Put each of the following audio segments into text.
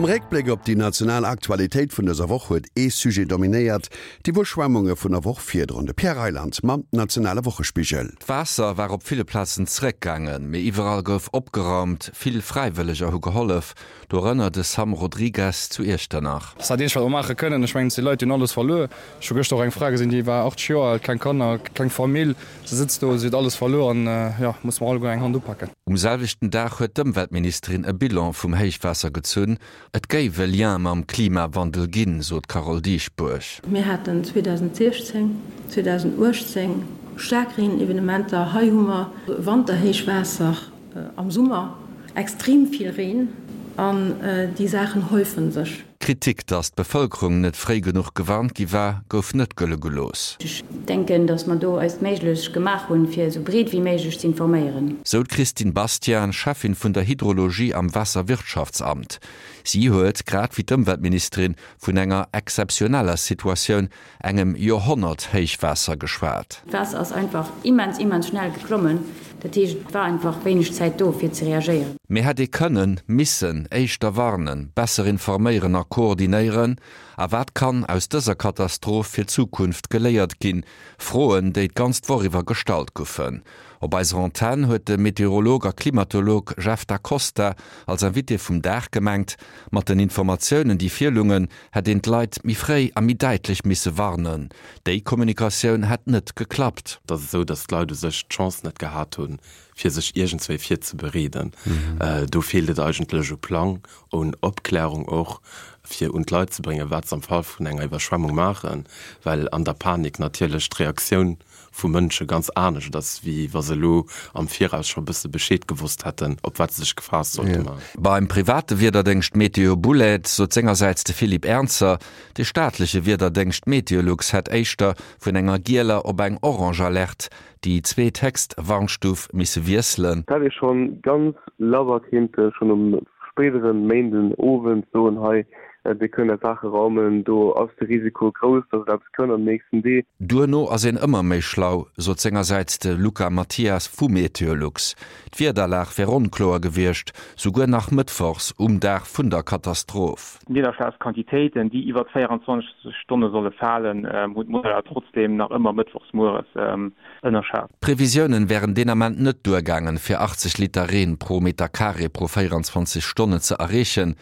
Am Réckbléck op déi national Aktualitéit vun dëser Woch huet ee Sujet dominéiert, d'Iwwerschwemmunge vun der Woch virdrun. De Pierre Reyland mam nationale Wochespigel. D'Waasser war op ville Plazen zeréckgaangen, mee iwwerall gouf opgeraumt. Vill Fräiwëlleger hu gehollef, dorënner de Sam Rodrigues zu Iechternach. Dat ass dat eenzegt, wat mer maache kënnen. Ech mengen, et si Leit, déi hunn alles verluer. Ech hu gëschter och eng Fra gesinn, déi war 80 Joer al, keng Kanner, keng Famill. Se sëtzt do, si huet alles verluer an, jo, musse mer alleguer eng Hand upaken. Um selwechten Dag huet d'Ëmweltministerin e Bilan vum Héichwaasser gezunn. Et géif e Lien mam Klimawandel ginn, sot d'Carole Dieschbourg. Mir haten 2016, 2018 staark Reenevenementer. Hei hu mer Wanterhéichwaasser. Am Summer extrem vill Reen an déi Saachen häufen sech. D'Kritik, datt d'Bevëlkerung net fréi genuch gewarnt gi war, gouf net gëlle gelooss. Ech denken, datt mer do eist Méiglech gemaach hunn, fir esou breet wéi méiglech ze informéieren. Sou d'Christine Bastian, Cheffin vun der Hydrologie am Waasserwirtschaftsamt. Si huet, grad wéi d'Ëmweltministerin, vun enger exzeptioneller Situatioun engem Joerhonnert-Héichwaasser geschwat. D'Waasser ass einfach immens, immens schnell geklommen. Dat heescht, et war einfach wéineg Zäit do, fir ze reagéieren. Mee hätt ee kënnen, missen éischter warnen, besser informéieren a koordinéieren? A wat kann aus dëser Katastroph fir d'Zukunft geléiert ginn? Froen, déi d'ganz Woch iwwer gestallt goufen. Op eiser Antenn huet de Meteorolog a Klimatolog Jeff Da Costa als Invité vum Dag gemengt, mat den Informatiounen, déi virlungen, hätt een d'Leit méi fréi a méi däitlech misse warnen. Déi Kommunikatioun hätt net geklappt. Et ass esou, datt d'Leit u sech d'Chance net gehat hunn, fir sech iergendswéi virzebereeden. Do feelt et eigentlech u Plang, un Opklärung och, fir un d'Leit ze bréngen, wat se am Fall vun enger Iwwerschwemmung maachen, well an der Panik natierlech d'Reaktioun vu Mënsche ganz anescht ass, wéi wa se elo am Viraus scho e bësse Bescheed gewosst hätten, op wat se sech gefaasst sollte maachen. Beim private Wiederdéngscht Météo Boulaide sot sengersäits de Philippe Ernzer, de staatleche Wiederdéngscht Meteolux hätt éischter vun enger gieler op eng orange Alerte, déi zweethéchst Warnstuf, misse wiesselen. Et hätt ee schonn ganz labber kéinte schonn um spéidere Méinden Owend soen, hei Dir kënnt är Saache raumen, do ass de Risiko grouss, dass et eppes kënnt an den nächsten Dee. Duerno ass een ëmmer méi schlau, sot sengersäits de Luca Mathias vu Meteolux. D'Wiederlag wär onkloer gewiescht, souguer nach mëttwochs um Dag vun der Katastroph. D'Nidderschlagsquantitéiten, déi iwwert 24 Stonne solle falen, hunn d'Modeller trotzdeem nach ëmmer mëttwochs mueres ënnerschat. D'Previsiounen wären deen Ament net duergaangen, fir 80 Liter Reen pro Meter Carré pro 24 Stonne ze erreechen.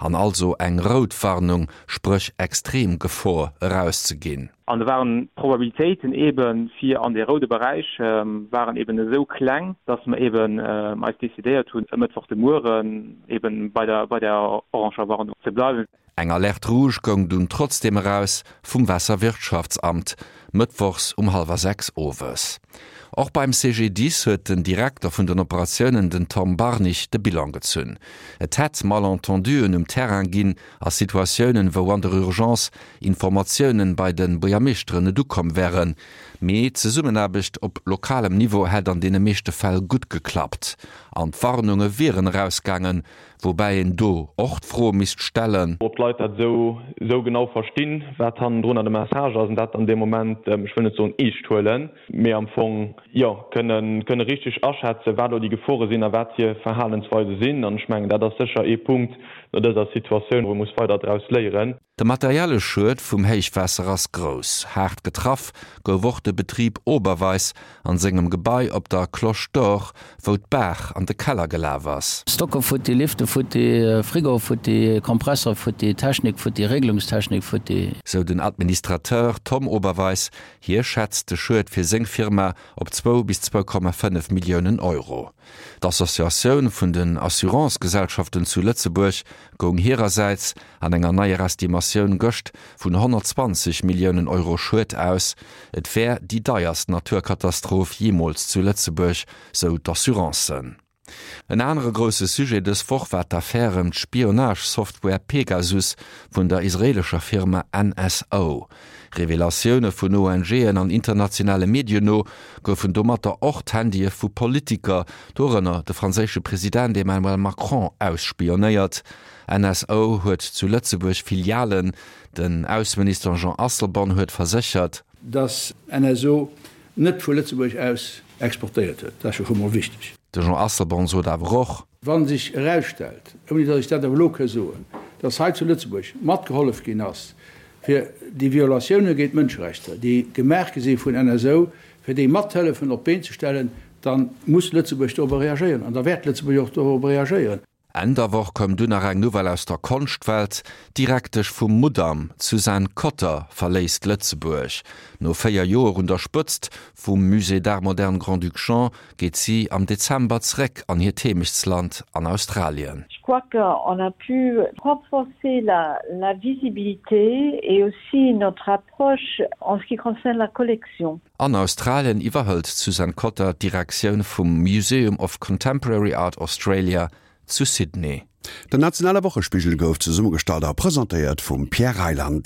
An also eng rout Warnung, spréch extrem Gefor, erauszeginn. An do waren d'Probabilitéiten eebe fir an dee roude Beräich waren eeben esou kleng, dass mer eeben eis decidéiert hunn, e Mëttwoch de Mueren eeben bei der bei der oranger Warnung ze bleiwen. Eng Alerte rouge goung dunn trotzdeem eraus vum Waasserwirtschaftsamt, mëttwochs um hallwer 6 owes. Och beim CGDIS huet den Direkter vun den Operatiounen, den Tom Barnig, de Bilan gezunn. Et hätt Malentenduen um Terrain ginn a Situatiounen, wou an der Urgence Informatiounen bei de Buergermeeschteren net ukomm wären. Mee d'Zesummenaarbecht op lokalem Niveau hätt an deene meeschte Fäll gutt geklappt an d'Warnunge wieren erausgaangen, Woubäi een do och d'Fro misst stellen. Ob d'Leit dat esou esou genau verstinn, wat hannendrunner de Message ass, an dat dann dee Moment, ech wëll net soen eescht huelen, mee am Fong, jo, kënne kënne richteg aschätzen, wat elo déi Gefore sinn a wat hir Verhalensweise sinn. An ech mengen, dat ass sécher ee Punkt no dëser Situatioun, wou ee muss weider draus léieren. De materielle Schued vum Héichwaasser ass grouss. Haart getraff gouf och de Betrib Oberweis an sengem Gebai op der Cloche d'Or, wou d'Baach an de Keller gelaf ass. Stocke futti, Lifte futti, Frigo futti, Kompressor futti, Technik futti, Regelungstechnik futti. Sou den Administrateur Tom Oberweis. Hie schätzt de Schued fir seng Firma op zwou bis 2,5 Milliounen Euro. D'Associatioun vun den Assurancegesellschaften zu Lëtzebuerg goung hirersäits an enger neier Estimatioun gëscht vun 120 Milliounen Euro Schued aus. Et wär déi deierst Naturkatastroph jeemools zu Lëtzebuerg, sou d'Assurancen. En anere grousse Sujet dës Woch war d'Affär ëm d'Spionage-Software Pegasus vun der israeelescher Firma NSO. Revelatioune vun ONGen an internationale Medien no goufen domatter och d'Handye vu Politiker, dorënner de franséische President Emmanuel Macron, ausspionéiert. NSO huet zu Lëtzebuerg Filialen. Den Ausseminister Jean Asselborn huet verséchert. Datt NSO net vu Lëtzebuerg aus exportéiert huet. Dat ass jo scho mol wichteg. De Jean Asselborn sot awer och. Wa sech erausstellt, ouni datt ech dat awer elo ka soen, dass hei zu Lëtzebuerg matgehollef ginn ass, fir déi Violatioune géint d'Mënscherechter, déi gemaach gi si vun NSO, fir déi mathëllefen op d'Been ze stellen, da muss Lëtzebuerg dorobber reagéieren an da wäert Lëtzebuerg och dorobber reagéieren. Enn der Woch koum dunn nach eng Nouvelle aus der Konschtwelt, D'Direktesch vum Mudam, d'Suzanne Cotter, verléisst Lëtzebuerg. No 4 Joer un der Spëtzt vum Musée d'Art Moderne Grand-Duc Jean geet si am Dezember zeréck an hiert Heemechtsland an Australien. Je crois qu'on a pu renforcer la, la visibilité et aussi notre approche en ce qui concerne la collection. An Australien iwwerhëlt d'Suzanne Cotter d'Direktioun vum Museum of Contemporary Art Australia zu Sydney. Den nationale Wochespigel gouf zesummegestallt a presentéiert vum Pierre Reyland.